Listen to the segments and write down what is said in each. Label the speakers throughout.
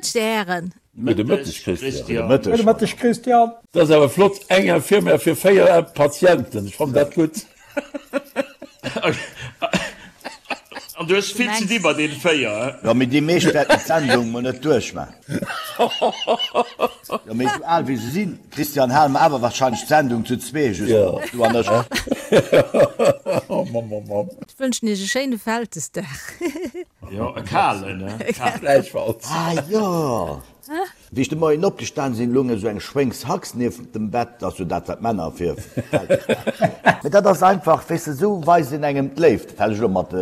Speaker 1: Mëtteg, Dir Hären.
Speaker 2: Gudde Mëtteg, Christian.
Speaker 3: Gudde Mëtteg.
Speaker 4: Gudde Mëtteg, Christian.
Speaker 2: Dat ass awer flott, eng Infirmière fir 4 Patienten, ech fannen dat gutt.
Speaker 5: An du hues vill ze di bei deene 4, he?
Speaker 3: Jo, mee déi meescht wäerten d'Sendung mol net duerchman. Jo, mee esou al wéi se sinn, Christian, hale mer awer wahrscheinlech d'Sendung zu zwee just op, du an ech.
Speaker 2: Oh Mann, Mann, Mann.
Speaker 1: Ech wënschen iech e schéine Vältesdag.
Speaker 5: Jo, e kalen, he?
Speaker 2: Gläichfalls.
Speaker 3: Ah jo! Wéi ech de Moien opgestan sinn, lung esou eng Schwéngshax nieft dem Bett, dat ass jo dat, wat d'Männer fir Vältesdag huelen. Mee dat ass einfach, weess de, esou weist een engem d'Léift. Dat hat ech elo mat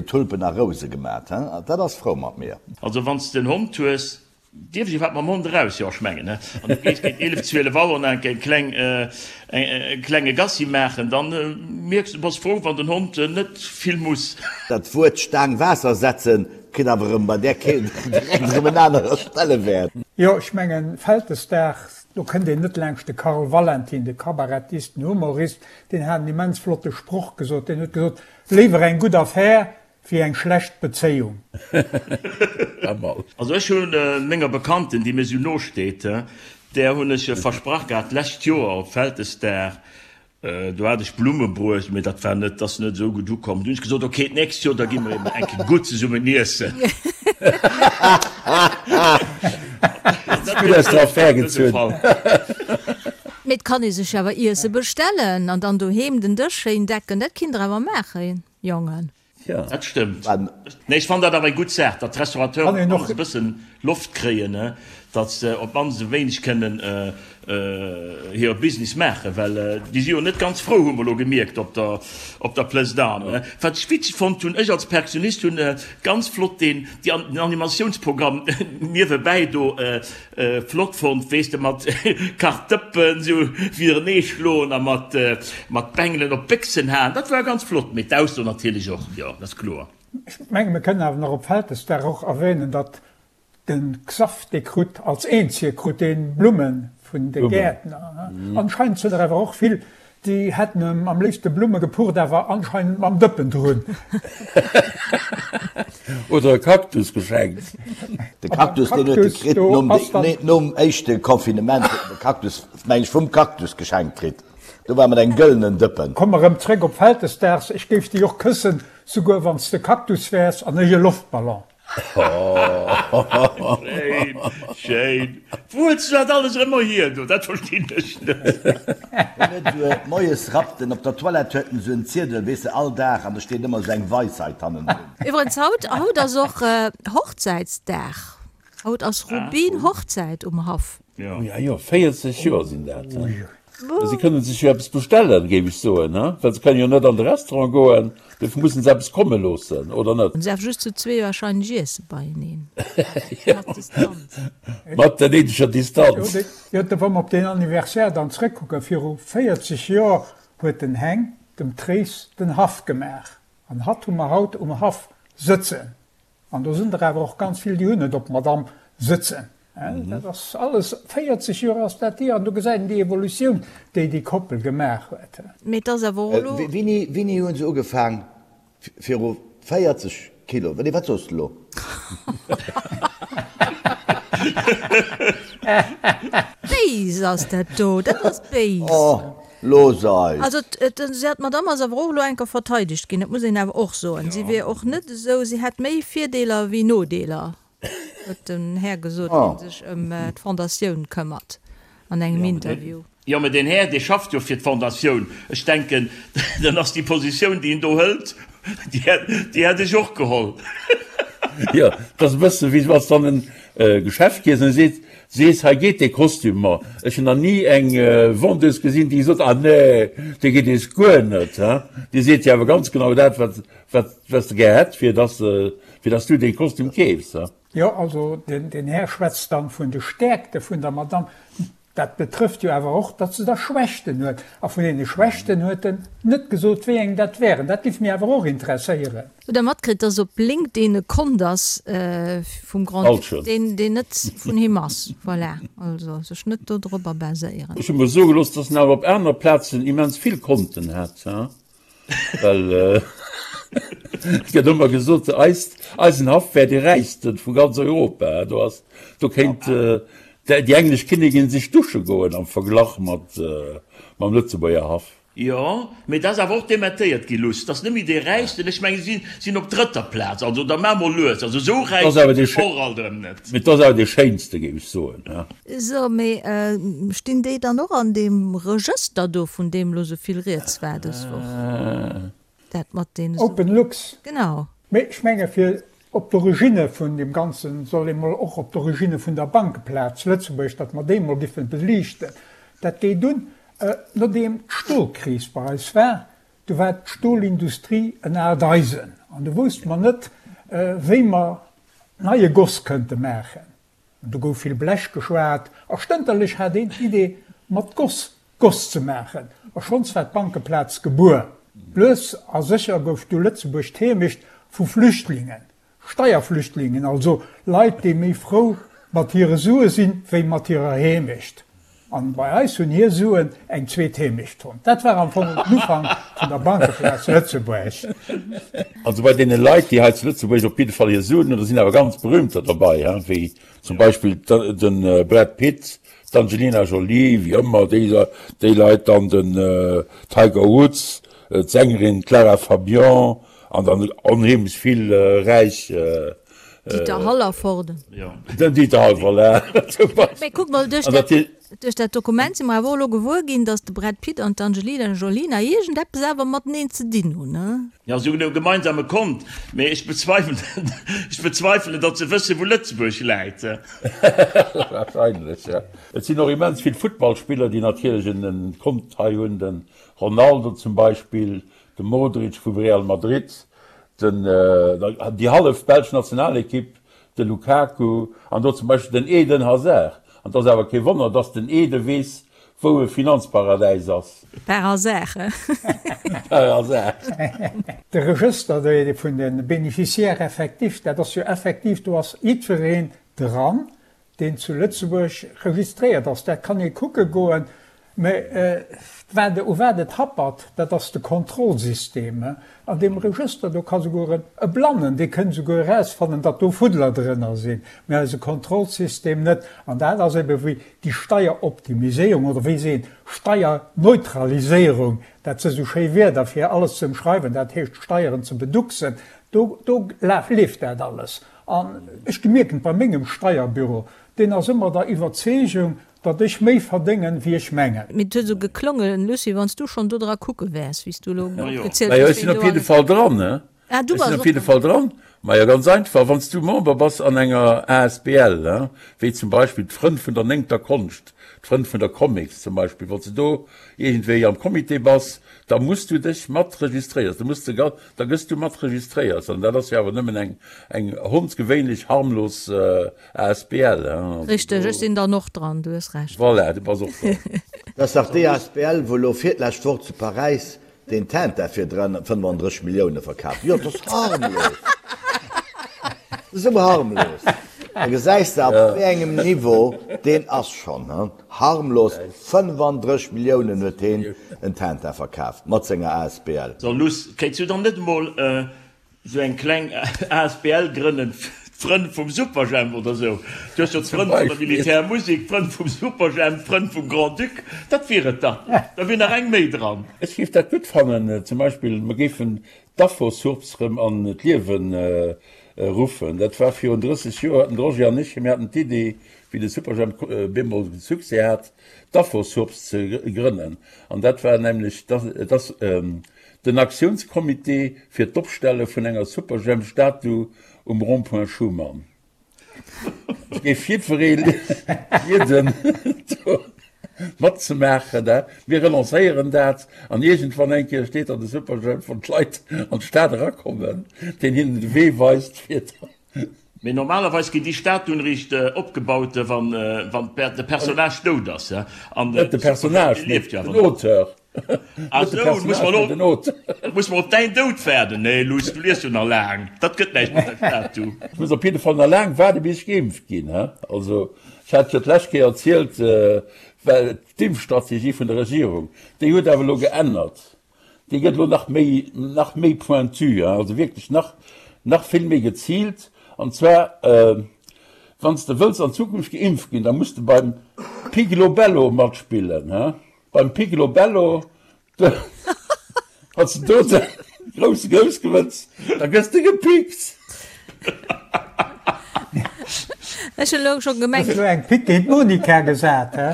Speaker 3: Tulpen a Rouse gemat, he, dat ass frou mat mir.
Speaker 5: Also wann s de en Hond hues, dierf ech iwwerhaapt mam Hond eraus? Jo, ech mengen, he. An du gees géint 11, 12 Auer nach eng kleng, e klenge Gassi maachen, dann mierks de, bass frou, wann den Hond net vill muss.
Speaker 3: Dat Wuert Staang Waasser setzen kritt awer erëm bei där Keelt direkt erëm en anere Stellewäert.
Speaker 4: Jo, ech mengen, Vältesdag, do kënnt een net laangscht de Karl Valentin, de Kabarettist, den Humorist, deen hat en immens flotte Sproch gesot, deen huet gesot, Léiwer eng gutt Affär wéi eng schlecht Bezéiung.
Speaker 5: Also ech hu menger Bekannten, déi mir esou no steet, där hunn ech versprach gehat d'lescht Joer op Vältesdag, do hat ech Blumme bruecht, mee dat war net, ass net esou gutt ukomm. Du hunn ech gesot, ok, d'nächst Joer da gi mer eben eng Kéier gutt zesummen iessen.
Speaker 2: Gutt aus der Affär gezunn.
Speaker 1: Mee et kann ee sech awer Iesse bestellen an dann doheem den Dësch schéin decken, dat kinnt der awer maachen. Jongen.
Speaker 2: Ja.
Speaker 5: Dat stëmmt. Nee, ech fannen dat awer eng gutt Saach, datt d'Restaurateuren op d'mannst e bëssen Loft kréien, datt se op d'mannst e wéineg kënnen hire Business maachen, well déi si jo net ganz frou, hu mer elo gemierkt op der, op der Place d'Armes. Wat ech witzeg fonnt hunn, ech als Perkussionist hunn ganz flott deen, déi, den Animatiounsprogramm niewebäi do Flott fonnt, weess de, mat Kachdëppen sou widerenee schloen a mat mat Bengelen op d'Béchsen haen, dat war ganz flott, mee d'Ausso natierlech och, jo, dat ass kloer.
Speaker 4: Ech menge mir kënnen awer nach op Vältesdag och erwähnen, datt de Xaph dee krut als eenzege krut dee Blumme vun de Gäertner. Anscheinend sinn der awer och vill Déi hätten em am léifste Blumme gepucht, awer anscheinend mam Dëppen drun.
Speaker 2: Oder e Kaktus geschenkt.
Speaker 3: De Kaktus, deen huet e kritt nom, nee, nom éischte Confinement huet en de Kaktus, meng ech, vum Kaktus geschenkt kritt. Do war mat engem gëllenen Dëppen.
Speaker 4: Komm erëm zréck op Vältesdaags, ech géif déi och këssen, souguer wann s de Kaktus wäers an ech e Loftballon.
Speaker 5: Schéin, schéin. Wou huels du dat alles ëmmer hier do? Dat verstinn ech net.
Speaker 3: Hien huet esou moies rappt en op der Toilette huet en esou en Ziedel, weess de, all Dag an do steet ëmmer esou eng Weisheit hannendrun.
Speaker 1: Iwwerens haut, haut ass och Hochzäitsdag. Haut ass Rubin-Hochzäit um Haff.
Speaker 2: Jo, jo, 40 Joer sinn dat. Si kënnen sech jo eppes bestellen, géif ech soen, he? Well se kënnen jo net an de Restaurant goen, dofir mussen se eppes komme loossen, oder net?
Speaker 1: Se awer just zu zwee wahrscheinlech iesse beieneen.
Speaker 2: Mat Distanz. Mat der néideger Distanz.
Speaker 4: Jo, da wa mer op deen Anniversaire dann zrëckkucken, viru 40 Joer huet den Heng dem Tréis den Haff gemaach. An hatt hu mer haut um Haff sëtzen. An do sinn der awer och ganz vill, déi hunn et op d'Madame sëtzen. Dat ass alles, 40 Joer ass dat hier, an do gesäit een déi Evolutioun, déi déi Koppel gemaach huet.
Speaker 1: Mee et ass awer och elo.
Speaker 3: Wéini, wéini hu se ugefaang? Viru 40 Kilo, nee, wat soos de elo?
Speaker 1: Béis ass dat do, dat ass béis.
Speaker 3: Oh, Looss eis!
Speaker 1: Also d'Madame ass awer och elo enker verteidegt ginn, dat muss een awer och soen. Si wier och net esou, si hätt méi Virdeeler wéi Nodeeler, huet den Här gesot, dee sech ëm d'Fondatioun këmmert, an engem Interview.
Speaker 5: Jo, mä deen Här, dee schafft jo fir d'Fondatioun. Ech denken, dann ass déi Positioun, déi en do hëlt, déi hätt ech och geholl.
Speaker 2: Jo, et ass e bësse wéi wann s de an e Geschäft gees an e seet, Sees, hei geet dee Kostüm mer. Ech hunn nach ni eng Vendeuse gesinn, déi gesot, ah nee, dee geet eis guer net. Hein? Déi seet dir awer ganz genau dat, wat, wat, wat se gär hätt, fir dass, fir dass du dee Kostüm keefs. Hein?
Speaker 4: Jo, also den, den Här schwätzt dann vun de Stäerkte vun der Madame. Dat betrëfft jo awer och, datt se da Schwächten huet. A vun deene Schwächten huet en net gesot, wéi eng dat wären. Dat géif mir awer och interesséieren.
Speaker 1: Hutt der matkritt, dass op LinkedIn e Kont ass vum Grand-Duc, deen net vun him ass? Voilà, also sech net do dropper baséieren.
Speaker 2: Ech hu mer soe gelooss, dass en awer op aner Plazen immens vill Konten hätt, well. Et gëtt ëmmer gesot, eist, eisen Haff wär dee räichste vu ganz Europa. Do ass, do kéint déi englesch Kinnigin sech dusche goen am Verglach mat mam Lëtzebuerger Haff.
Speaker 5: Jo, mee dat ass awer och dementéiert gi, Luss. Dat ass net méi dee räichsten. Ech mengen, si sinn op drëtter Plaz. Also da maach mol lues. Also esou räich sinn se och alt erëm net.
Speaker 2: Mee et ass awer dee schéinste, géif ech soen.
Speaker 1: So, mee stinn déi dann och an deem Regëster do, vun deem elo esou vill rieds war dës Woch? Dat mat deene.
Speaker 4: Open Lux.
Speaker 1: Genau.
Speaker 4: Mee ech menge fir op d'Originne vun deem Ganzen soll ee mol och op d'Originne vun der Bankeplaz Lëtzebuerg, datt mer déi mol giffen beliichten. Dat geet un, nodeem d'Stolkris bei eis war, du war d'Stolindustrie en aalt Eisen an du wousste mer net, wéi mer neie Goss kënnte maachen. An do gouf vill Blech geschwat a stënterlech hat een d'Idee, mat Goss Goss ze maachen. A schonns war d'Bankeplaz gebuer. Lues a sécher gouf du Lëtzebuerg d'Heemecht vu Flüchtlingen, Steierflüchtlingen, also Leit, déi méi frou mat hire Sue sinn, wéi mat hirer Heemecht. An bei eis hunn hir Suen eng zweet Heemecht fonnt. Dat war am Fong den Ufank vun der Bankeplaz Lëtzebuerg.
Speaker 2: Also bei deene Leit, déi hei zu Lëtzebuerg op jidde Fall hir Suen hunn, do sinn awer ganz berühmter derbei, he, wéi zum Beispill de Brad Pitt, d'Angelina Jolie, wéi ëmmer déi, déi Leit, dann den Tiger Woods, d'Sängerin Clara Fabian an dann onheemlech vill räich
Speaker 1: Dieter Hallervorden.
Speaker 2: Den Dieter Hall, voilà, zum
Speaker 1: Beispill. Mee kuck mol, duerch dat, duerch dat Dokument si mer awer och elo gewuer ginn, datt de Brad Pitt an d'Angelina Jolie nach iergendeppes awer mateneen ze dinn hunn, ne?
Speaker 5: Jo, si hunn e gemeinsame Kont, mee ech bezweifelen, ech bezweifelen, datt se wëssen, wou Lëtzebuerg läit.
Speaker 2: Wahrscheinlech, jo. Et sinn och immens vill Futtballspiller, déi natierlech en Kont hei hunn, de Ronaldo zum Beispill, de Modric vum Real Madrid, den, déi hallef belsch Nationalekipp, de Lukaku an do zum Beispill den Eden Hazard. An et ass awer kee Wonner, dass den Ede weess, wou e Finanzparadäis ass.
Speaker 1: Par hasard, he?
Speaker 2: Par hasard.
Speaker 4: De Regëster vun de Bénéficiaires effectifs, dat ass jo effektiv, do ass jiddwereen dran, deen zu Lëtzebuerg registréiert ass. Dat kann ee kucke goen. Mä wat, u wat et happert, dat ass de Kontrollsystem. An deem Regëster, do ka souguer e Blannen, dee kënnt souguer erausfannen, datt do Fuddler drënner sinn, mä eise Kontrollsystem net. An dat ass ebe wéi déi Steieroptimiséierung oder wéi seet een, Steierneutraliséierung, dat si sou schéi Wierder fir alles ze ëmschreiwen, dat heescht Steieren ze beducksen, do, do leeft dat alles. An ech gemierken et bei mengem Steierbüro, deen ass ëmmer der Iwwerzeegung, datt ech méi verdéngen, wéi ech mengen.
Speaker 1: Mee et huet esou geklongen, Lucie, wann s du schonn do dra kucke wäers, wéi s du elo
Speaker 2: opgezielt hues, Ech sinn op jidde Fall dran, ne? Ah, du bass och dran. Ech sinn op jidde Fall dran. Majo, ganz einfach, wann s du Member bass an enger asbl, ne, wéi zum Beispill d'Frënn vun der néngter Konscht, d'Frënn vun der Comics zum Beispill, wann s du do iergendwéi am Comité bass, da muss du dech mat registréiers, da muss de, da gëss du mat registréiers. An dat ass jo awer nëmmen eng, eng hondsgewéinlech harmlos Asbl, hein.
Speaker 1: Richteg, ech sinn dann och dran, du hues Recht.
Speaker 2: Voilà, du bass och dran.
Speaker 3: Dat ass dach déi asbl, wou elo virlescht Woch zu Paräis deen Tintin fir 35 Millioune verkaf. Jo, dat ass harmlos. Dat ass esou harmlos. Da gesäis de, op wéi engem Niveau deen ass schonn, hein. Harmlos, 35 Milliounen huet heen en Tintin verkaaft mat senger asbl.
Speaker 5: So Luss, kéints du dann net emol Sou eng kleng asbl grënnen, d'Frënn vum Superjhemp oder sou. Du hues jo d'Frënn vun der Militärmusik, d'Frënn vum Superjhemp, d'Frënn vum Grand-Duc, dat wier et dach. Da wier nach eng méi dran.
Speaker 2: Ech géif dat gutt fannen, zum Beispill mer géifen d'Afosurps rëm an d'Liewe ruffen. Dat war virun 30 Joer, haten de Roger an ech, mir haten d'Idee, wéi de Superjhemp bemol Succès hat, d'Afosurps ze grënnen. An dat war nämlech, et ass, Den Aktiounscomité fir d'Opstelle vun enger Superjhemp-Statu um Rond-point Schuman. Ech géif jiddweree bieden, do matzemaachen. Mir relancéieren dat an iergendwann eng Kéier steet dann de Superjhemp, wann d'Leit an d'Stad erakommen, deen hinnen de Wee weist fir.
Speaker 5: Mee normalerweis ginn déi Statuen eréischt opgebaut, wann de Personnage dout ass.
Speaker 2: Net de Personnage, mee den Auteur.
Speaker 5: Ah sou, muss mer elo muss mer op däin Doud waarden? Nee Luss, du liefs jo nach laang, dat gëtt näischt mat der Statue.
Speaker 2: Ech muss op jidde Fall nach laang waarde bis ech geimpft ginn. Also ech hat jo d'lescht Kéier erzielt, well d'Impfstrategie vun der Regierung, déi huet awer elo geännert. Dee gëtt elo nach méi, nach méi pointu, also wierklech nach, nach vill méi geziilt. An zwar, wann s de wëlls an Zukunft geimpft ginn, da muss de beim Piglobello matspillen, he? Beim Piglobello, wann s de do de grousse Grouss gewënns, da gëss de gepickt.
Speaker 1: Ech hunn elo scho gemengt.
Speaker 4: Hues elo eng Pick géint d'Monica gesat, he?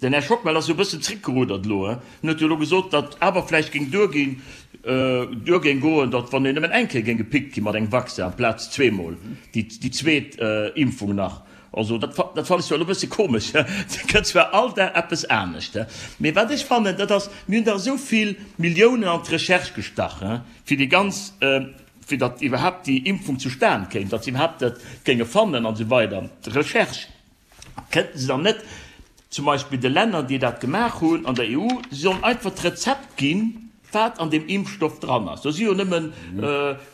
Speaker 5: Den Här Schockmel ass jo e bëssen zréckgerudert elo. En huet jo elo gesot, datt awer vläicht géing duerginn, duer géing goen, datt wann een nëmmen eng Kéier géing gepickt gi mat engem Vaccin amplaz zweemol déi zweet Impfung nach. Also dat dat fannen ech zwar elo e bësse komesch. Et gëtt zwar all Dag eppes anescht, mee wat ech fannen, dat ass, mir hunn dach esou vill Milliounen an d'Recherche gestach, fir déi ganz, fir datt iwwerhaapt déi Impfung zustan kéim, datt se iwwerhaapt dat géinge fannen an esou weider, d'Recherche. Kënnten se dann net zum Beispill de Länner, déi dat gemaach hunn an der EU, se sollen einfach d'Rezept ginn, wat an deem Impfstoff dran ass. Do si jo nëmmen e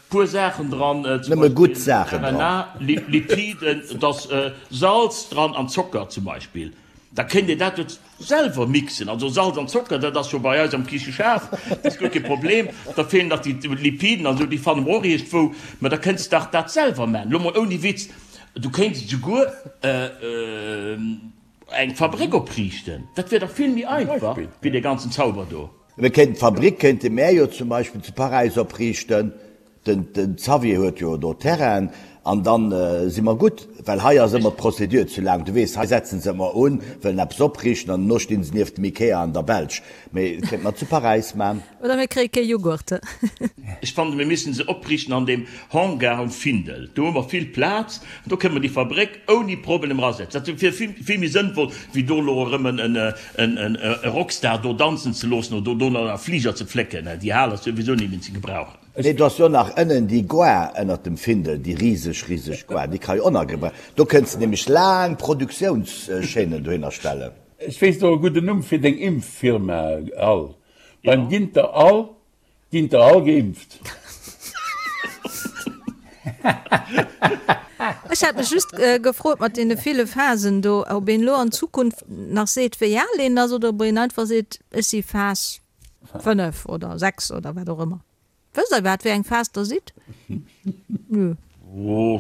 Speaker 5: puer Saachen dran, zum Beispill RNA, Lipiden, et ass Salz dran an Zocker zum Beispill. Da kéint een dat jo selwer mixen. Also Salz an Zocker, dat ass jo bei eis am Kicheschaf, dat ass guer kee Problem. Da feelen nach déi Lipiden an esou, déi fanne mer och iergendwou. Mä da kënnst dach dat selwer man. Elo mol ouni Witz, du kéints esouguer eng Fabréck opriichten. Dat wier dach vill méi einfach wéi dee ganzen Zauber do.
Speaker 3: Mir kéinten d'Fabrik kéinte mär jo zum Beispill zu Paräis opriichten. Den Xavier huet jo do Terrainen an dann si mer gutt, well hei ass ëmmer d'Procédure ze laang. Du weess, hei setzen se ëmmer un, wëllen eppes opriichten an dono stinn se nieft dem Ikea an der Belsch. Mee et kéinte mer zu Paräis man.
Speaker 1: Oder mir kréie kee Jughurt.
Speaker 5: Ech fannen, mir missten se opriichten an deem Hangar um Findel. Do hu mer vill Plaz an do kënne mer déi Fabréck ouni Problem erasetzen. Dat wier vill, vill méi sënnvoll, wéi do elo erëm e Rockstar do danzen ze loossen oder do nach e Fliger ze flécken. Déi Hal ass souwisou net méi ze gebrauchen.
Speaker 3: Nee, do ass jo nach ënnen déi Gare ënnert dem Findel, déi riseg, riseg Gare, déi ka jo och nach gebraucht. Do kënns de nämlech laang Produktiounschaînen dohinner stellen.
Speaker 2: Ech weess och e gudden Numm fir deng Impffirma, Al. Beim Ginter Al ginn der all geimpft.
Speaker 1: Ech hat mech just gefrot mat deene ville Phasen do, ob een elo an Zukunft nach seet, wéi al een ass, oder ob een einfach seet, ech si Phas 5 oder 6 oder wat och ëmmer. Wësst der iwwerhaapt wéi eng Phas der sidd?
Speaker 5: Nö. Oh,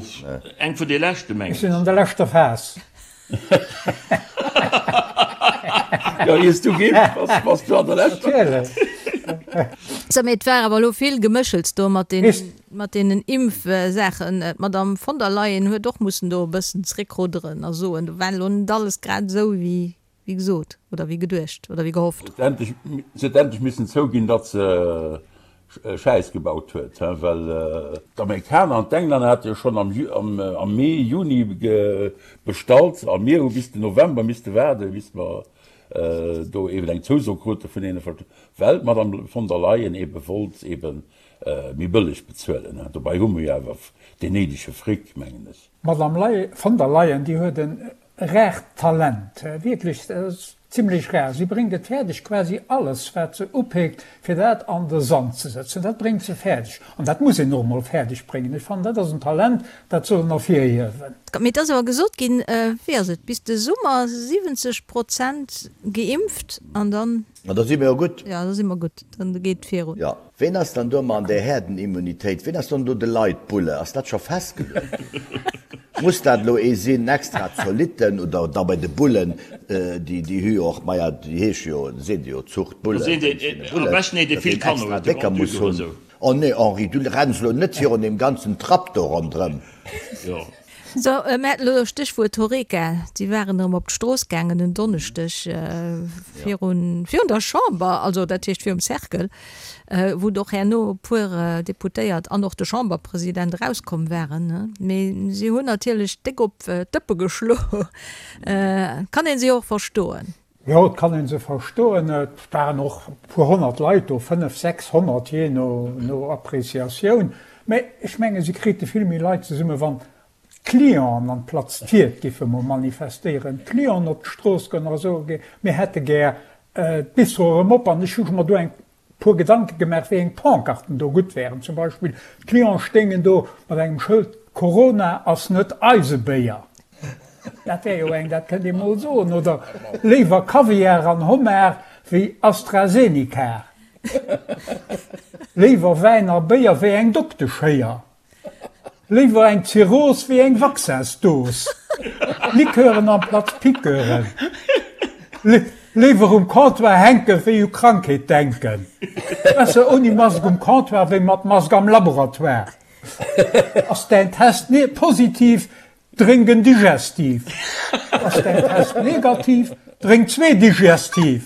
Speaker 5: eng vun de leschte mengen
Speaker 4: ech. Ech sinn an der leschter Phas.
Speaker 2: Jo, iers du geimpft bass, bass du an der leschter.
Speaker 4: Natierlech.
Speaker 1: Sou, mee et war awer elo vill Geméchels do mat den, mat deenen Impfsaachen. D'Madame von der Leyen huet och mussen do e bëssen zréckrudderen a soen, do war elo net alles grad esou wéi Wéi gesot, oder wéi geduecht, oder wéi gehofft.
Speaker 2: Se huet endlech missen zouginn, datt se Schäiss gebaut huet, well d'Amerikaner an d'Englänner hate jo schonn am Mee, Juni bestallt a mir hu bis den November misste waarden, bis mer do eben eng Zouso krute vun deene, well d'Madame von der Leyen ebe wollt ebe méi bëlleg bezuelen. Dobäi hu mer jo awer deen néidege Fric, mengen ech.
Speaker 4: D'Madame von der Leyen, déi huet en Raart Talent, wierklech, dat ass zimlech rar. Si bréngt et fäerdeg, quasi alles, wat se upeekt, fir dat an de Sand ze sëtzen. Dat bréngt se fäerdeg. An dat muss een och emol fäerdeg bréngen. Ech fannen, dat ass en Talent, dat soll een ervirhiewen.
Speaker 1: Mee et ass awer gesot ginn, wéi ass et, bis de Summer 70 Prozent geimpft an dann.
Speaker 3: Ma da si mir jo gutt.
Speaker 1: Jo, da si mer gutt. Dann geet et virun.
Speaker 3: Jo. Ween ass dann do mat an där Herdenimmunitéit? Ween ass dann do de Leitbulle? Ass dat scho festgeluecht ginn? Muss dat elo ee sinn, extra Zolitten oder da bei de Bullen, déi déi hu jo och, maja, déi heesche jo, seet ee jo Zuchtbullen, wéinst deene Bullen, datt een extra Décker muss hunn. Oh nee, Henri, du renns elo net virun deem ganzen Trapp do ronderëm.
Speaker 1: So, mir haten elo Stéchwuert Horeca. Si waren erëm op d'Strooss gaangen en Donneschdeg virun, virun der Chamber, also dat heescht virum Cercle, wou och herno e puer Deputéiert an och de Chamberpresident erauskomm waren. Mee si hunn natierlech déck op d'Dëppe geschlo. Kann ee se jo och verstoen.
Speaker 4: Jo, et kann ee se verstoen. Et waren och e puer 100 Leit do, 500, 600, jee no Appreciatioun. Mä ech menge se krite vill méi Leit zesumme wann d'Clienten an d'Platz Tiert giffe mol manifestéieren, d'Clienten op d'Strooss goen a soe mir hätte gär d'Bistro erëm op. An ech hu mer do eng puer Gedanke gemaach, wéi eng Pancarten do gutt wären. Zum Beispill, d'Clienten stéingen do mat engem Schëld, Corona ass net eise Béier. Dat wär jo eng, dat kënnt ee mol soen. Oder léiwer Kaviar an Homard wéi AstraZeneca. Léiwer Wäin a Béier wéi eng Dokteschéier. Léiwer eng Zirrhos wéi eng Vaccinsdos. Liqueuren amplaz Piqueuren. Léiwer um Comptoir hänke wéi u Krankheet denken. Besser ouni Mask um Comptoir wéi mat Mask am Laboratoire. Ass däin Test positiv, Drénk en Digestif. Ass däin Test negativ, drénk zwee Digestif.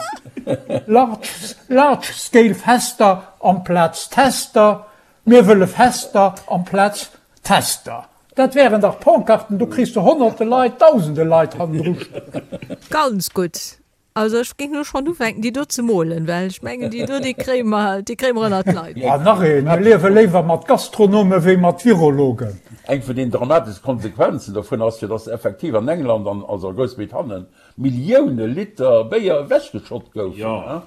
Speaker 4: Large, large scale Fester amplaz Tester, mir wëlle Fester amplaz Tester. Dat wären dach Pancarten, do kriss de honnerte Leit, dausende Leit hannendru stoen.
Speaker 1: Ganz gutt. Also ech géing elo schonn ufänken déi do ze molen, well ech mengen déi do déi kréie mer, déi kréie mer ënnert d'Leit.
Speaker 4: An nach een, Mir liewe léiwer mat Gastronome wéi mat Virologen.
Speaker 2: Eng vun den dramateschste Konsequenzen dovun ass jo, dass effektiv an England an also a Groussbritannien Millioune Liter Béier ewechgeschott goufen,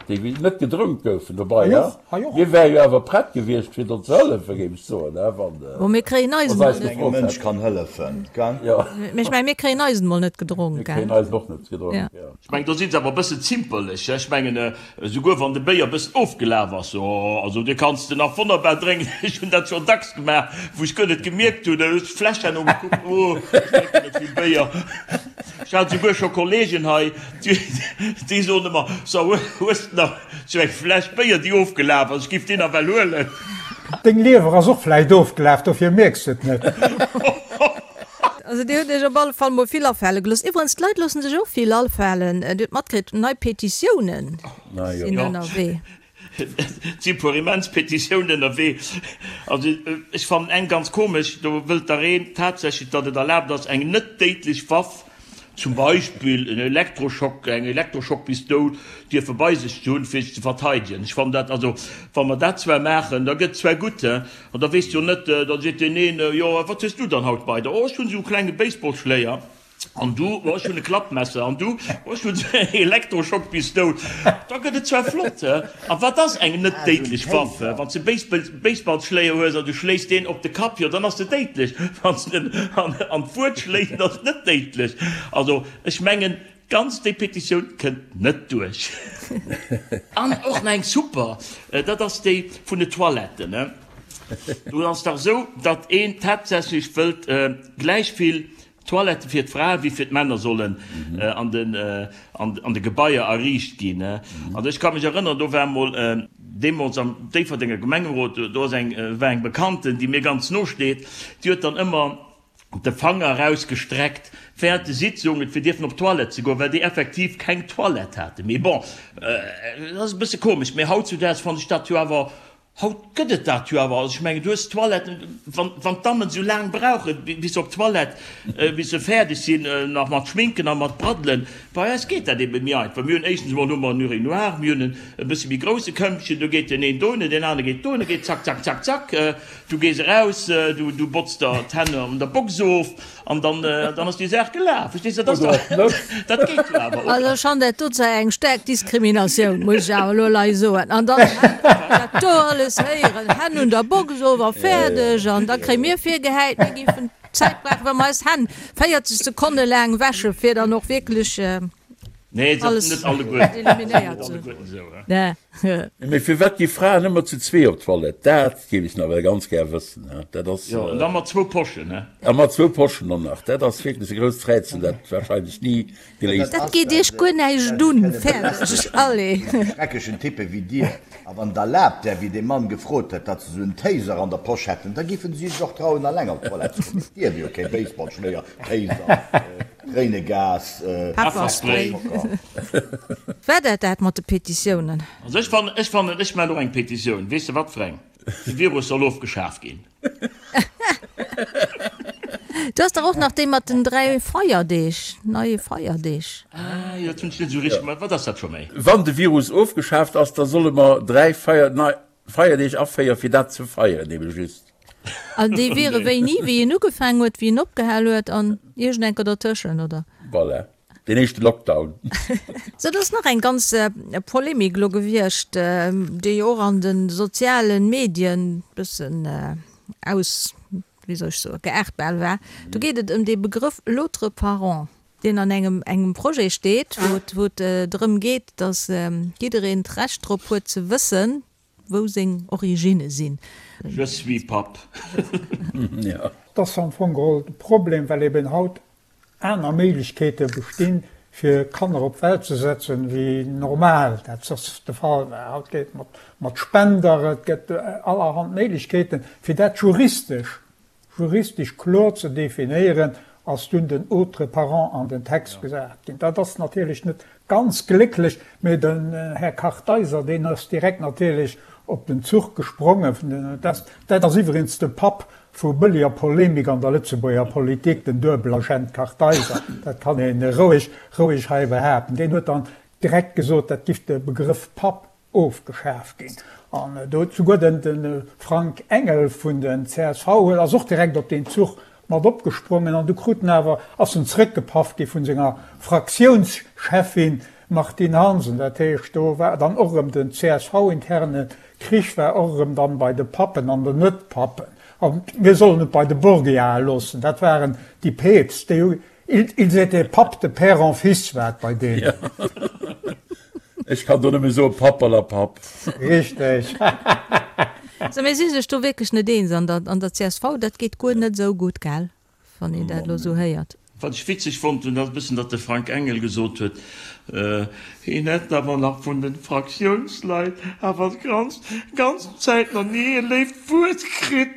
Speaker 2: déi net gedronk goufen. Dobei, mir wäre jo awer prett gewiescht fir do ze hëllefen, géif ech soen, wann
Speaker 1: Bon, mir kréien eisen
Speaker 3: mol net. Engem Mënsch kann hëllefen, gell?
Speaker 1: Jo. Mee ech mengen, mir kréien eisen mol net gedronk,
Speaker 2: gell? Mir kréien eisen och net gedronk, jo.
Speaker 5: Ech mengen, do si se awer e bëssen zimperlech, ech mengen, esouguer wann de Béier e bëssen ofgelaf ass, jo, also dee kanns de nach wonnerbar drénken. Ech hunn dat schonn dacks gemaach, wou ech guer net gemierkt hunn, da hues de d'Fläsch herno gekuckt, oh, ech drénken net vill Béier. Ech hat esouguer scho Kollegen hei, déi soen ëmmer, So, hues de nach sou eng Fläsch Béier, déi ofgelaf ass? Ech giff déi nach well huelen.
Speaker 4: Deng Liewer ass och vläicht ofgelaf, dofir mierks de et net.
Speaker 1: Also dir hutt iech op alle Fall mol vill afale gelooss. Iwwerens, d'Leit loossen sech och vill afalen. Dir hutt matkritt, nei Petitiounen sinn ënnerwee.
Speaker 5: Et si puer immens Petitiounen ënnerwee. Also ech fannen eng ganz komesch, do wëllt der een tatsächlech, datt et erlaabt ass, eng net déidlech Waff, zum Beispill en Elektroschock, eng Elektroschockpistoul, dierfe bei sech ze hunn, fir sech ze verteidegen. Ech fannen dat, also wa mer dat zwar maachen, da gëtt zwar gutt, he, an da weess jo net, da seet deen een, jo wat hues du dann haut bei der? Oh ech hunn esou e klenge Baseballschléier. An du? Oh ech hunn e Klappmesser. An du? Oh ech hunn esou eng Elektroschockpistoul. Da gëtt et zwar flott, he. A wat ass eng net déidlech Waff? Wann s de Baseballschléier hues an du schléis deen op de Kapp, jo dann ass se déidlech. Wann s de en an d'Wuert schléis, dann ass et net déidlech. Also ech mengen ganz déi Petitioun kënnt net duerch. An och nach eng super, dat ass déi vun de Toiletten. Do ass dach esou, datt een tatsächlech wëllt gläich vill Toilettë fir d'Frae wéi fir d'Männer sollen an de Gebaier erriicht ginn. Also ech ka mech erënneren, do war mol deemools am Déifferdenger Gemengerot, do ass eng, war eng Bekannten, déi mir ganz no steet, déi huet dann ëmmer de Fanger erausgestreckt während de Sitzungen, fir dierfen op d'Toilette ze goen, well déi effektiv keng Toilette haten. Mee bon, dat ass e bësse komesch. Mee hautzudaags fannen ech dat jo awer Haut gëtt et dat jo awer. Also ech mengen, du hues Toiletten, wann, wann d'Dammen esou laang brauchen, bis se op d'Toilette, bis se fäerdeg sinn, nach mat Schminken a mat Braddelen. Bei eis geet dat ebe méi einfach. Mir hunn éischtens emol hu mer en Urinoir, mir hunn en e bësse méi grousse Këmpchen, do geet deen een dohinner, deen anere geet dohinner, geet zack, zack, zack, zack. Du gees eraus, du, du botz der d'Hänn an der Box of. An dann, dann ass déi Saach gelaf. Verstees de? Dat ass dach, dat geet jo awer, oder?
Speaker 1: Also ech fannen dat do zwar eng staark Diskriminatioun, muss ech awer elo lei soen. An dann dat do alles héieren, Hänn un der Box of a fäerdeg. An da kréie mir virgehäit, mir géifen Zäit brauchen, wa mer eis Hänn 40 Sekonne laang wäschen, fir dann och wierklech
Speaker 5: Nee,
Speaker 1: alles
Speaker 5: net alleguerten.
Speaker 1: eliminéiert ze hunn.
Speaker 2: Mee firwat gi Fraen ëmmer zu zwee op d'Toilette? Dat géif ech nawell ganz gär wëssen. Dat ass.
Speaker 5: Jo, an da mat zwou Poschen, he?
Speaker 2: A mat zwou Poschen och nach. Dat ass wierklech e grousst Rätsel, dat warscheinlech ni geléist
Speaker 1: Dat geet iech guer näischt un. Fäerdeg. Allez.
Speaker 3: Schrecklechen Typpe wéi dir. A wann et erlaabt wär, wéi dee Mann gefrot huet, datt se esou en Taser an der Posch hätten, da giffen si sech och trauen, eleng op d'Toilette ze goen. Et dierf jo kee Baseballschléier, Taser. Tréinegas,
Speaker 1: Pefferspray. War dat dat mat de Petitiounen?
Speaker 5: Also ech fannen, ech fannen, ech maachen och eng Petitioun. Weess de wat fir eng? De Virus soll ofgeschaf ginn.
Speaker 1: Du has dach och nach déi mat den 3 Feierdeeg, neie Feierdeeg.
Speaker 5: Ah jo, dat hunn ech net esou richteg mat. Wat ass dat scho méi?
Speaker 2: Wann de Virus ofgeschaaft ass, da solle mer 3 Feier, nei Feierdeeg aféieren, fir dat ze feieren, ebe just.
Speaker 1: An déi wiere wéini? Wéi en ugefaang huet, wéi en opgehal huet an iergendenker dertëschent, oder?
Speaker 2: Voilà, deen éischte Lockdown.
Speaker 1: Sou, et ass nach eng ganz Polemik elo gewiescht, déi och an de soziale Medien bëssen aus, wéi soll ech soen, geaart bal war. Do geet et ëm dee Begrëff l'autre parent. Deen an engem engem Projet steet, wou et wou et drëm geet, datt jiddereen d'Recht drop huet ze wëssen, wou seng Originne sinn.
Speaker 5: Je suis Papp.
Speaker 4: Dat ass am Fong geholl de Problem, well eben haut aner Méiglechkeete bestinn, fir Kanner op d'Welt ze setzen, wéi normal dat soss de Fall war. Haut geet et mat Spender, et gëtt allerhand Méiglechkeeten, fir dat juristesch Juristesch kloer ze definéieren, ass dunn den autre parent an den Text gesat ginn. Dat ass natierlech net ganz glécklech, mee den Här Kartheiser, deen ass direkt natierlech op den Zuch gesprongen. Dat ass iwwregens de Papp vu bëlleger Polemik an der Lëtzebuerger Politik, den Duebelagent Kartheiser, dat kann ee roueg, roueg hei behaapten. Deen huet dann direkt gesot, dat giff de Begrëff Papp ofgeschaf ginn. An do huet souguer de Frank Engel vun den csv huet ass och direkt op deen Zuch mat opgesprongen an du krut en awer, ass en zrëckgepaff gi vun senger Fraktiounscheffin Martine Hansen. Dat heescht, do war dann och erëm den CSV-interne Krich war och erëm dann bei de Pappen an den Net-Pappen. A mir sollen et bei de Borgiae loossen, dat waren déi Peepst, déi hu Ils étaient papes de père en fils war et bei deenen.
Speaker 2: Ech kann do nëmme soen, Papperlapapp.
Speaker 4: Richteg.
Speaker 1: So, mir si sech do wierklech net eens an der, an der csv. Dat geet guer net esou gutt, gell, wann een dat elo esou héiert.
Speaker 5: Wat ech witzeg fonnt hunn, ass e bëssen, datt de Frank Engel gesot huet, hien hätt awer nach vun de Fraktiounsleit awer d'ganz, ganz Zäit nach ni e léift Wuert kritt.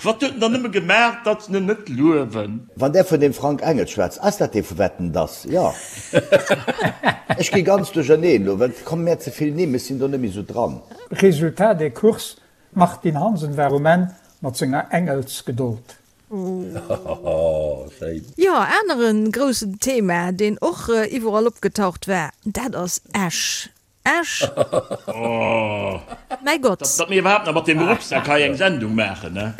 Speaker 5: Wat huet en dann nëmme gemaach, datt se en net luewen?
Speaker 3: Wann där vun deem Frank Engel schwätzt, ass dat dee vu Wetten, dass? Jo. Ech gi ganz duercherneen elo, well et komme mär ze vill Nimm, ech sinn do net méi esou dran.
Speaker 4: Résultat des courses, D'Martine Hansen war um Enn mat senger Engelsgedold.
Speaker 2: Schéin.
Speaker 1: Jo, aneren groussen Thema, deen och iwwerall opgetaucht war, dat ass Esch. Esch! Mäi Gott!
Speaker 5: Datt mir iwwerhaapt nach mat deem Rucksack hei eng Sendung maachen, ne?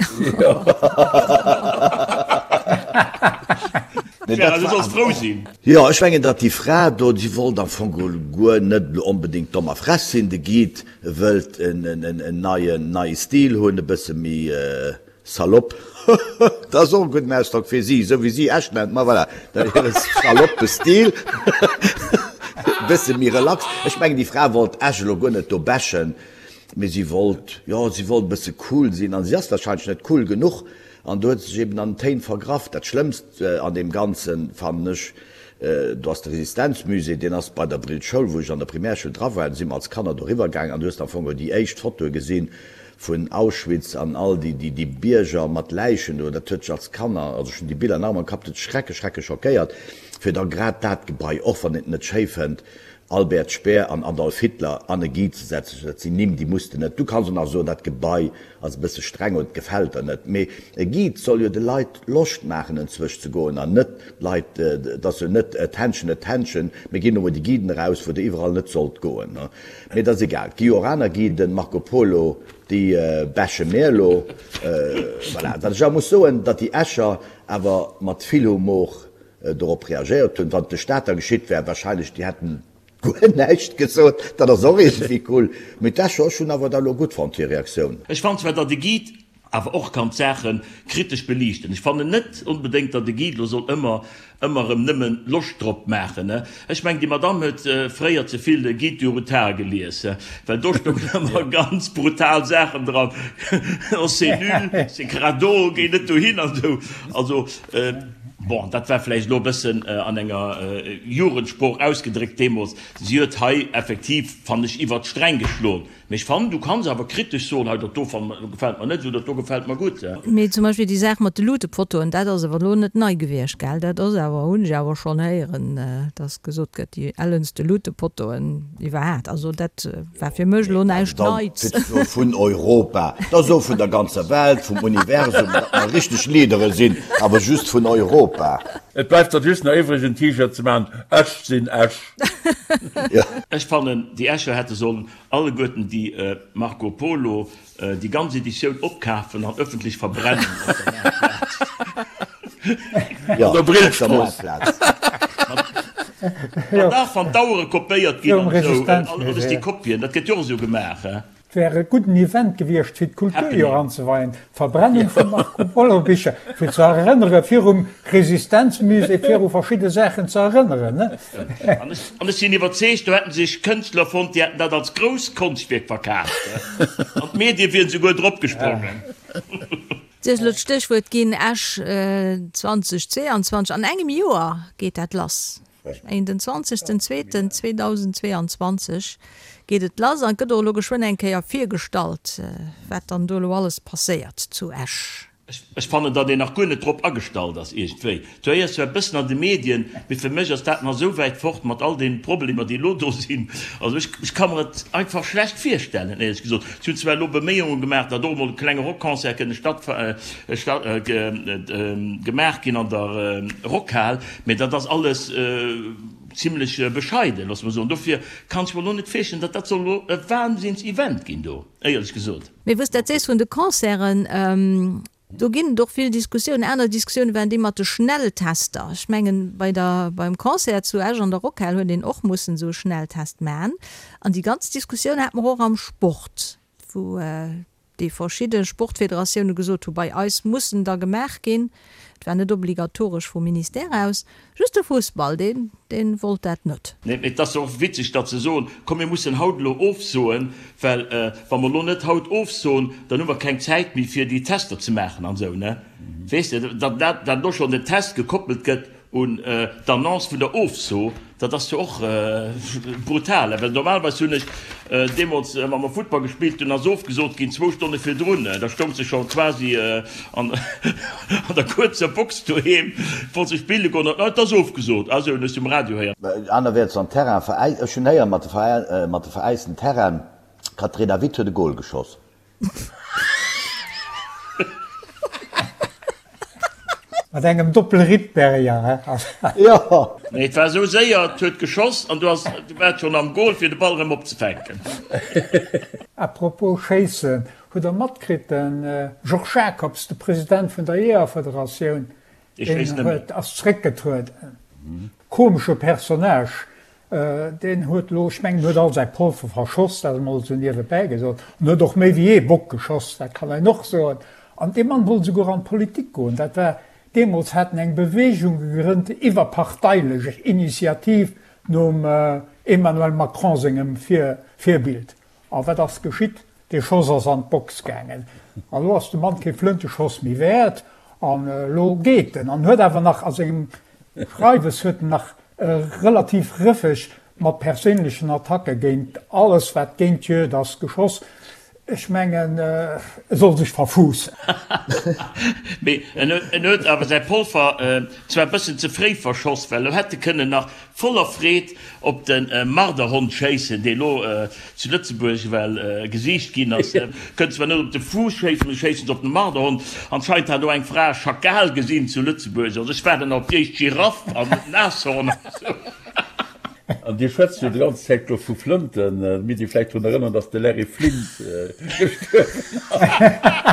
Speaker 5: Gérard, du solls frou sinn.
Speaker 3: Jo, ech mengen, datt déi Fra do, déi wollt am Fong geholl guer net elo onbedéngt domm a frech sinn. De Guide wëllt en neien, neie Stil hunn, e bësse méi Salopp, dat ass och e gudden Ausdrock fir si, esou wéi si Esch nennt, ma voilà, dat hire saloppe Stil, e bësse méi relax. Ech mengen, déi Fra wollt Esch elo guer net do bashen, mee si wollt, jo, si wollt e bësse cool sinn an si ass wahrscheinlech net cool genuch an do huet se sech eben an den Téin vergraff. Dat Schlëmmst an deem Ganzen fannen ech, do ass de Resistenzmusée, deen ass bei der Brillschoul, wou ech an der Primärschoul dra war, do si mer als Kanner doriwwer gaangen an du hues am Fong déi éischt Fotoe gesinn Vun Auschwitz an all déi, déi, déi Bierger mat Läichen do, dat huet dech als Kanner, also ech hunn déi Biller nach ëmmer am Kapp, dat huet dech schrecklech, schrecklech schockéiert, fir da grad dat Gebai, och wann een et net schéi fënnt, Albert Speer an Adolf Hitler an e Guide ze setzen, dat sinn Nimm, déi muss de net, du kanns och nach soen, dat Gebai ass e bësse streng oder et gefält der net, mee e Guide soll jo de Leit Loscht maachen enzwësch ze goen an net d'Leit, et ass jo net attention, attention, mir ginn elo mol déi Guiden eraus, wou der iwwerall net sollt goen. Mee et ass egal, et gi jo och aner Guiden, Marco Polo, déi bashe mir elo. Voilà. Wat ech awer muss soen, datt déi Escher awer mat vill Humor dorop reagéiert hunn. Wann et de Stater geschitt wär, wahrscheinlech, déi hätten guer näischt gesot. Dat ass och iergendwéi cool. Mee d'Escher, ech hunn awer dat elo gutt fonnt, hir Reaktioun.
Speaker 5: Ech fannen zwar, datt e Guide awer och kann d'Saache kritesch beliichten. Ech fannen net onbedéngt, datt e Guide lo soll ëmmer, ëmmer erëm nëmmen Loscht drop maachen. Ech mengen, déi Madamm huet fréier ze vill Guide du Routard gelies, well do stoungen ëmmer ganz brutal Saachen dran, oh c'est nul, c'est crado, géi net dohin an esou. Also, bon, dat war vläicht elo e bëssen an enger Jugendsprooch ausgedréckt deemools. Si huet hei effektiv, fannen ech, iwwert d'Sträng geschloen. Mee ech fannen, du kanns awer kritesch soen, hei dat do gefällt mer net esou, dat do gefällt mer gutt.
Speaker 1: Mee zum Beispill déi Saach mat de Lutepottoen, dat ass awer elo net nei gewiescht, gell? Dat ass awer, hunn ech awer schonn héieren, dass gesot gëtt, déi ellenste Lutepottoen iwwerhaat. Also dat war fir mech elo näischt Neits.
Speaker 3: Dat ass vun Europa, dat ass och vun der ganzer Welt, vum Universum, datt mer richteg Leadere sinn, awer just vun Europa.
Speaker 2: Et bleift der just nach iwwreg en T-Shirt ze maachen, Ech sinn Esch.
Speaker 5: Ech fannen, déi Escher hätte sollen alleguerten déi Marco Polo, déi ganz Editioun opkafen an ëffentlech verbrennen op der Maartplaz.
Speaker 3: An der Brillstrooss.
Speaker 5: An dach, wann d'Auere kopéiert ginn an esou, alles déi Kopien, dat gëtt jo och esou gemaach.
Speaker 4: Et wär e gudden Event gewiescht, fir d'Kulturjoer anzeweien, d'Verbrennung vu Marco Polo Bicher, fir ze erënnere virum Resistenzmusée, viru verschidde Saachen ze erënneren, ne?
Speaker 5: An ech sinn iwwerzeegt, do hätten sech Kënschtler fonnt, déi hätten dat als grousst Konschtwierk verkaaft, an d'Medie wieren souguer drop gesprongen.
Speaker 1: Dir hutt elo d'Stéchwuert ginn, Esch 2022. An engem Joer geet dat lass. Ech mengen den zwanzegsten zweeten 2022 geet et lass an et gëtt och elo geschwënn eng Kéier virgestallt, wat dann do elo alles passéiert zu Esch.
Speaker 5: Ech fannen, datt een nach guer net drop agestallt ass iergendwéi. Du héiers zwar e bëssen an de Medien, mee fir mech ass dat nach esou wäit fort mat all deenen Problemer, déi elo do sinn. Also ech, ech ka mer et einfach schlecht virstellen, éierlech gesot. Si hunn zwar elo Beméiunge gemaach, datt och emol e klenge Rockconcert kënne statt, statt, gemaach ginn an der Rockhal, Mee dat ass alles zimlech bescheiden, loosse mer soen. Dofir kann ech mer elo net virstellen, datt dat soll elo e Wahnsinns-Event ginn do, éierlech gesot.
Speaker 1: Mee wou s de dat sees vun de Concerten, do ginn et och vill Diskussiounen. Aner Diskussioune waren déi mat de Schnelltester. Ech mengen, bei der, beim Concert zu Esch an der Rockhal huet een och mussen esou e Schnelltest maachen. An déi ganz Diskussioun hate mer och am Sport, wou déi verschidde Sportfederatioune gesot hu, bei eis muss en da gemaach ginn. Et war net obligatoresch vum Ministère aus. Just de Fussball, deen, dee wollt dat net.
Speaker 5: Nee, mee et ass jo och witzeg, datt se soen, komm mir mussen haut elo ofsoen, well wa mer elo net haut ofsoen, dann hu mer keng Zäit méi fir déi Tester ze maachen an esou, ne? Weess de, datt dat elo schonn den Test gekoppelt gëtt un d'Annonce vun der Ofso, dat ass jo och brutal, well normalerweis hunn ech deemools, wa mer Futtball gespillt hunn, ass ofgesot ginn zwou Stonne virdrun, da stoung se scho quasi an der kuerzer Box doheem, wollt se spille goen, an et ass ofgesot, ah sou, hunn ech se um Radio héieren.
Speaker 3: Anerwäerts am Terrain veräist, ech hunn héieren, mat de veräisten Terrainen, d'Katrina Witt huet e Gol geschoss.
Speaker 4: Mat engem Doppel-Rittberger, he?
Speaker 3: Jo!
Speaker 5: Nee, et war esou séier, et huet geschoss an du has, du waars schonn am Goal fir de Ball erëm opzefänken.
Speaker 4: A propos schéissen, hutt der matkritt, de Georges Jacobs, de President vun der Jeeërfederatioun, deen huet, ass zréckgetrueden. Komesche Personnage, Deen huet elo, ech mengen, huet all säi Polver verschoss, dat emol esou niewebäi gesot, an huet och méi wéi ee Bock geschoss, dat kann een och soen. An dee Mann wollt esouguer an d'Politik goen. Dat war deemools, hat en eng Beweegung gegrënnt, iwwerparteilech, Initiativ nom Emmanuel Macron sengem Virbild. A wat ass geschitt? Dee Schoss ass an d'Box gaangen. A lo ass de Mann kee Flënteschoss méi wäert. An elo geet en. An huet awer nach a sengem Schreiwes huet en nach relativ rëffeg mat perséinlechen Attacke géint alles, wat géint d'Juegd ass, geschoss. Ech mengen, e soll sech verfuussen.
Speaker 5: Mee en huet awer säi Polver zwar e bëssen ze fréi verschoss, well elo hätt e kënnen nach Voller Freed op de Marderhond schéissen, dee lo zu Lëtzebuerg well gesicht ginn ass. Kënnt zwar net op de Fuuss schéissen, mee schéissen se op den Marderhond. Anscheinend hat och eng Fra e Schakal gesinn zu Lëtzebuerg. Also ech waarden nach op déi éischt Giraff an Nashorn an esou.
Speaker 2: An Dir schwätzt jo déi ganz Zäit lo vu Flënten. Mir déi vläicht drun erënnern, dass de Larry Flynt gestuerwen
Speaker 5: ass.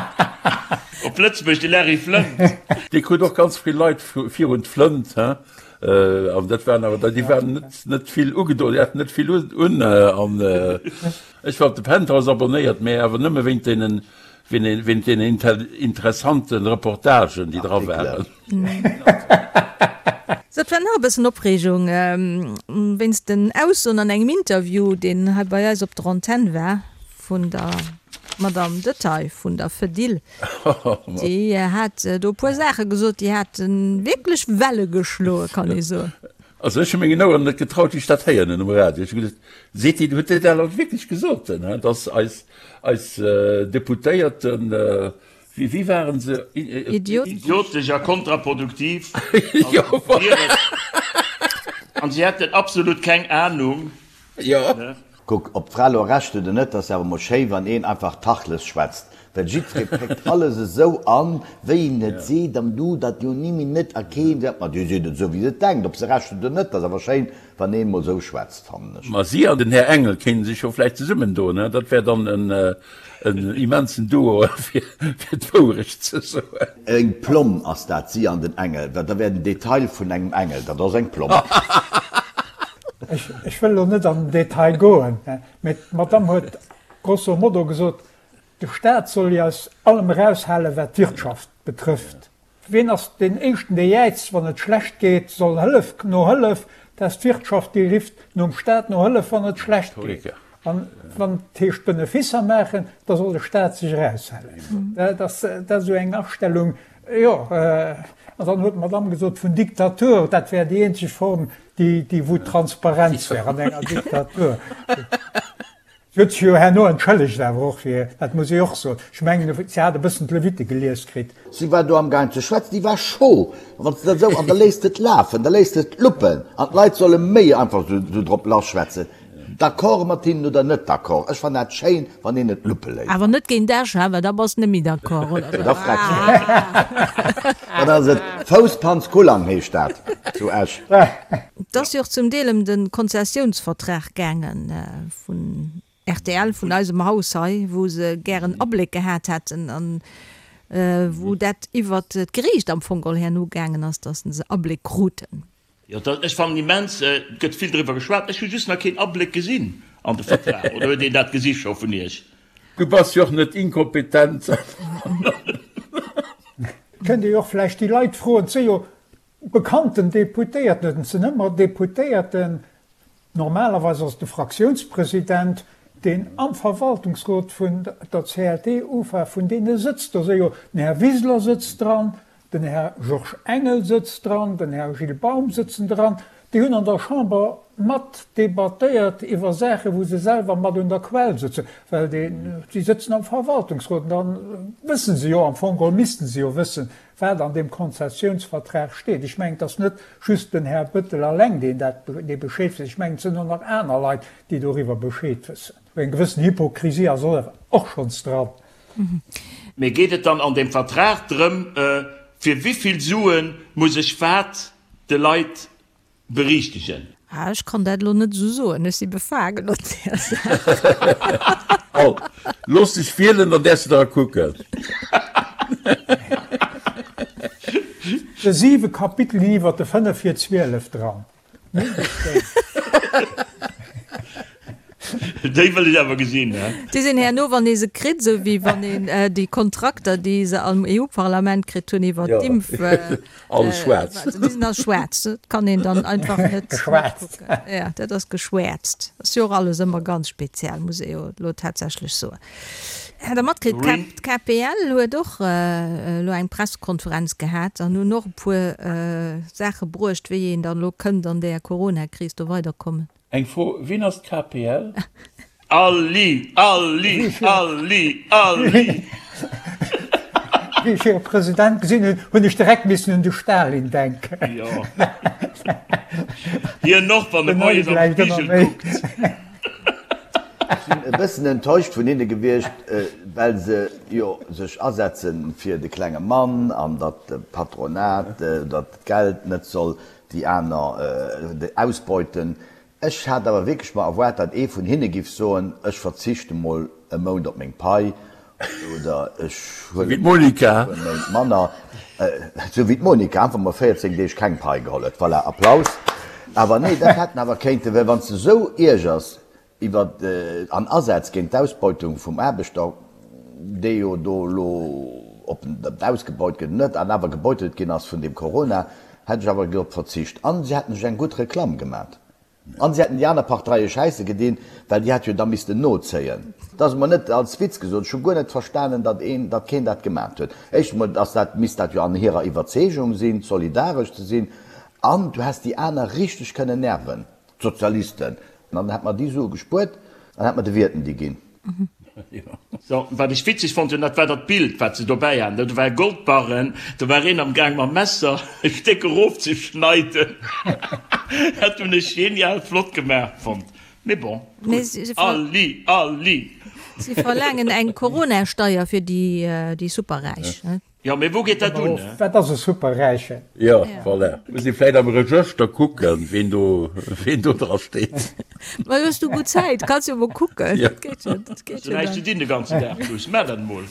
Speaker 5: Op Lëtzebuerg de Larry Flynt.
Speaker 2: Dee krut och ganz vill Leit virun d'Flënt, he? An dat waren awer déi waren net net vill ugedoen, déi haten net vill un. An ech war op de Penthouse abonnéiert, mä awer nëmme wéint deenen wéint deenen interessante Reportagen, déi dra waren.
Speaker 1: Sou, et war nach e bëssen Opreegung wéinst den Aussoen an engem Interview, deen hei bei eis op der Antenn war, vun der Madame Detaille vun der Fedil. Déi hat do e puer Saache gesot, déi hate wierklech Welle geschloe, kann ee soen.
Speaker 2: Also ech hu mengen Oueren net getraut, wéi ech dat héieren hunn um Radio. Ech hu geduecht, Seet déi, huet déi dat elo wierklech gesot, dass eis, eis Deputéierten, wéi, wéi waren se?
Speaker 1: Idiotesch.
Speaker 5: Idiotesch a kontraproduktiv. An si hätten absolut keng Anung.
Speaker 2: Jo.
Speaker 3: Kuck, ob d'Fra elo Recht huet oder net, ass awer mol schéi wann een einfach Tachles schwätzt, well jiddweree péckt alles esou an, wéi en et seet, an du dat jo ni méi net a keen seet, ma déi seet et esou wéi se et denkt, ob se Recht huet oder net, ass awer schéin wann een mol esou schwätzt, fannen ech.
Speaker 2: Ma si an den Här Engel kéinte sech jo vläicht zesummen doen, he? Dat wär dann en immensen Duo, fir d'Wourecht ze soen.
Speaker 3: Eng Plomm ass dat, si an den Engel, well da wär den Detail vun engem Engel, dat ass eng Plomm.
Speaker 4: Ech wëll elo net an den Detail goen, mä d'Madamm huet. Grosso modo gesot, de Staat soll jo aus allem eraushalen, wat d'Wirtschaft betrëfft. Wien ass deen éischten, dee jäizt, wann et schlecht geet, soll Hëllef no Hëllef? Dat ass d'Wirtschaft, déi rifft nom Staat no Hëllef, wann et schlecht geet. An wann et heescht Beneficer maachen, da soll de Staat sech eraushalen. Dat ass esou eng Astellung, jo. An dann huet d'Madamm gesot vun Diktatur, dat wär déi eenzeg Form, déi wou Transparenz wär an enger Diktatur. Si huet sech jo herno entschëllegt awer och fir, dat muss ee och soen. Ech mengen, si hat e bëssen d'Levite gelies kritt.
Speaker 3: Si war do amgaang ze schwätzen, déi war scho. A wann s de dat esou, an da léisst de et lafen, da léisst de et luppen an d'Leit solle méi einfach esou drop lasschwätzen, d'accord mat hinnen oder net d'accord. Ech fannen dat schéin, wann een et luppe léisst.
Speaker 1: Awer net géint Esch, ha, well da bass de net méi d'accord, oder?
Speaker 3: Da frecks de. Dann ass et Fouspanz-Kullang heescht dat zu Esch.
Speaker 1: Et ass jo och zum Deel ëm de Konzessiounsvertrag gaangen vun rtl, vun eisem Haus hei, wou se gären Abléck gehat hätten an wou dat iwwert d'Geriicht am Fong geholl herno gaangen ass, datt se Abléck kruten.
Speaker 5: Jo, ech fannen immens, et gëtt vill driwwer geschwat, ech hu just nach keen Abléck gesinn an de Vertrag. Oder huet een dat gesi scho vun Iech?
Speaker 2: Du bass jo och net inkompetent.
Speaker 4: Kënnt Dir jo och vläicht déi Leit froen, et si jo Bekannten Deputéierten, et sinn ëmmer Deputéierten, normalerweis ass et de Fraktiounspresident, deen am Verwaltungsrot vun der CLT UFA vun deene sëtzt. Do si jo, den Här Wiseler sëtzt dran, den Här Georges Engel sëtzt dran, den Här Gilles Baum sëtzen dran. Déi hunn an der Chamber mat debattéiert iwwer Saachen, wou se selwer mat un der Quell sëtzen, well déi sëtzen am Verwaltungsrot an da wësse se jo am Fong geholl, misste se jo wëssen, wat an deem Konzessiounsvertrag steet. Ech mengen, et ass net just den Här Bettel alleng, deen dat, dee Bescheed weess. Ech mengen, et sinn och nach aner Leit, déi doriwwer Bescheed wëssen. Eng gewëssen Hypokrisie ass och schonns dran.
Speaker 5: Mee geet et dann an deem Vertrag drëm, fir wivill Sue muss ech wat de Leit Berichtegen.
Speaker 1: Ah, ech kann dat elo net esou soen, ech si befaangen op där
Speaker 2: Saach. Al, looss dech wielen, dann däerfs de dra kucken.
Speaker 4: De siwe Kapitel ginn iwwer de 5 vir 12 dran. Mindestens.
Speaker 5: Déi wëll ech awer gesinn, he?
Speaker 1: Déi sinn herno, wann ee se kritt, esou wéi wann een déi Kontrakter, déi se am EU-Parlament kritt hunn iwwer d'Impf.
Speaker 2: Alles schwaarz.
Speaker 1: Déi sinn all schwaarz. Dat kann een dann einfach net kucken. Jo, dat ass geschwäerzt. Ass jo och alles ëmmer ganz speziell, muss ee jo elo tatsächlech soen. Hat Der matkritt, d'KPL huet och elo eng Pressekonferenz gehat an hunn och e puer Saache bruecht, wéi een dann elo kënnt an där Coronakris do weiderkommen.
Speaker 2: Eng Fro, Wien ass d'KPL?
Speaker 5: Alli! Alli! Alli! Alli!
Speaker 4: Wéi ech hire President gesinn hunn, hunn ech direkt missen un de Stalin denken.
Speaker 5: Jo. Hien och, wann e moies am Spigel kuckt.
Speaker 3: Ech sinn e bëssen enttäuscht vun hinne gewiescht, well se jo sech asetze fir de klenge Mann an datt de Patronat, datt d'Geld net soll déi aner ausbeuten. Ech hat awer wierklech mer erwaart, datt ee vun hinne giff soen, ech verzichte mol e Mount op meng Pai oder ech huelen mol e puer Méint manner, esou wéi d'Monica einfach mol 14 Deeg keng Pai geholl huet. Voilà, Applaus. Awer nee, dat hätt en awer kéinten, well wann s de esou iergers Iwwer an Asätz géint d'Ausbeutung vum Aarbechter, dee jo do elo, ob en dat ausgebeut gëtt oder net, an awer gebeutelt ginn ass vun deem Corona, hätt ech awer drop verzicht. An si hätten sech eng gutt Reklamm gemat. An si hätten déi aner Parteie Schäisse gedinn, well déi hätt jo da missten nozéien. Dat ass emol net als Witz gesot. Ech hu guer net verstanen, datt een, datt keen dat gemat huet. Éischt emol ass dat, misst dat jo an hirer Iwwerzeegung sinn, solidaresch ze sinn. An du häss déi aner richteg kënnen nerven. D'Sozialisten. An dann hätt mer déi Sue gespuert an hätt mer de Wierten déi ginn.
Speaker 5: So, wat ech witzeg fonnt hunn, dat war dat Bild, wat se dobäi haten. Do war e Goldbarren, do war een am Gaang mam Messer e Stéck erofzeschneiden. Dat hunn ech genial flott gemaach fonnt. Mee bon, gutt. Alli, alli!
Speaker 1: Si verlaangen eng Corona-Steier fir déi Superräich.
Speaker 5: Jo, mee wou geet dat un?
Speaker 4: Wat ass e Superräichen?
Speaker 2: Jo, voilà. Muss ee vläit am Regëschter kucken, ween do, ween do dra steet.
Speaker 1: Ma hues du gutt Zäit, kanns jo mol kucken.
Speaker 5: Jo. Dat geet jo, dat geet jo dann. Hues du näischt ze dinn de ganzen Dag, Luss? Maach dat emol.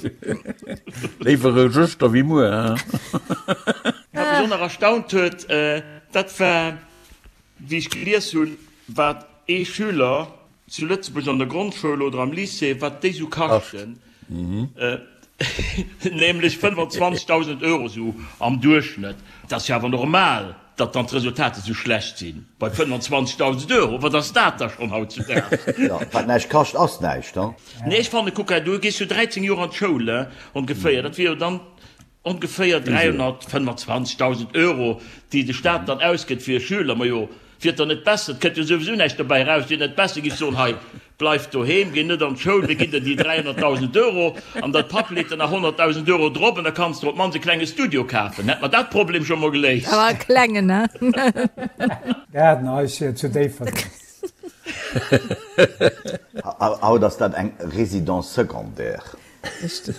Speaker 2: Léiwer Regëschter wéi muer, hein?
Speaker 5: Wat mech och nach erstaunt huet, dat war, wéi ech gelies hunn, wat ee Schüler. zu Lëtzebuerg an der Grondschoul oder am Lycée, wat déi sou kaschten, nämlech 25.000 Euro sou am Duerchschnëtt. Dat ass jo awer normal, datt dann d'Resultater sou schlecht sinn bei 25.000 Euro. Wat ass dat da schonn hautzudaags?
Speaker 3: Jo, wat näischt kascht, ass näischt, he?
Speaker 5: Nee, ech fannen, kuck hei, du gees jo 13 Joer an d'Schoul, he, ongeféier, dat wier jo dann Ongeféier 325.000 Euro, déi de Staat dann ausgëtt fir e Schüler. Majo, wier et dann net besser, et kënnt jo souwisou näischt dobäi eraus, wier et net besser, giff soen, hei, bleif doheem, géi net an d'Schoul, mir ginn der déi 300.000 Euro an däi Papp leet der nach 100.000 Euro drop an da kanns de op d'mannst e klenge Studio kafen. Hätt mer dat Problem scho mol geléist.
Speaker 1: Awer e klengen, he?
Speaker 4: Gaardenhaischen zu Déifferdeng.
Speaker 3: Haut ass dat eng Résidence secondaire.
Speaker 1: Richteg.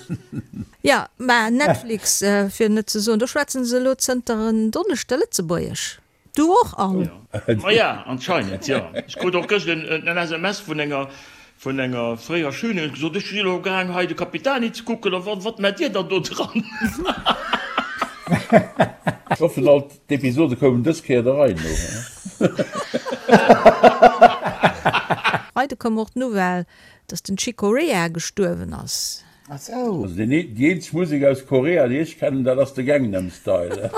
Speaker 1: Jo, mä Netflix, fir net ze soen, do schwätzen se elo zënter en Donneschde Lëtzebuergesch. Du och, Anne?
Speaker 5: Maja, anscheinend, jo. Ech krut och gëscht en SMS vun enger, vun enger fréierer Schülerin, huet gesot, ech si elo gaang hei de Capitani ze kucken, a wat maacht Dir dann do dran?
Speaker 2: Ech hoffen alt d'Episode koumen dës Kéier der Rei no.
Speaker 1: Freide koum och d'Nouvelle, Dass den Chick Corea gestuerwen ass.
Speaker 3: Ah sou.
Speaker 2: Also déi eenzeg Musek aus Korea déi ech kennen dat ass de Gangnam Style.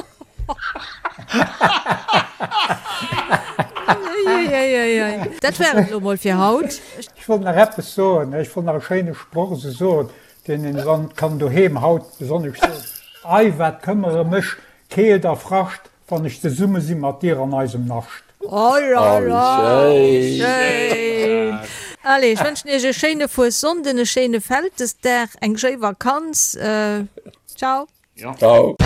Speaker 1: Dat war et elo mol fir haut.
Speaker 4: Ech wollt nach eppes soen, ech wollt nach e schéine Sproch esou soen, deen een dann kann doheem haut besonnesch soen, Ei, wat këmmere mech Keelt a Frascht, Wann ech zesumme si mat dir an eisem Nascht.
Speaker 1: Oh la la, wéi schéin! Allez, ech wënschen iech e schéine Fuessonnden, e schéine Vältesdag, eng schéi Vakanz. Ciao!
Speaker 2: Ciao!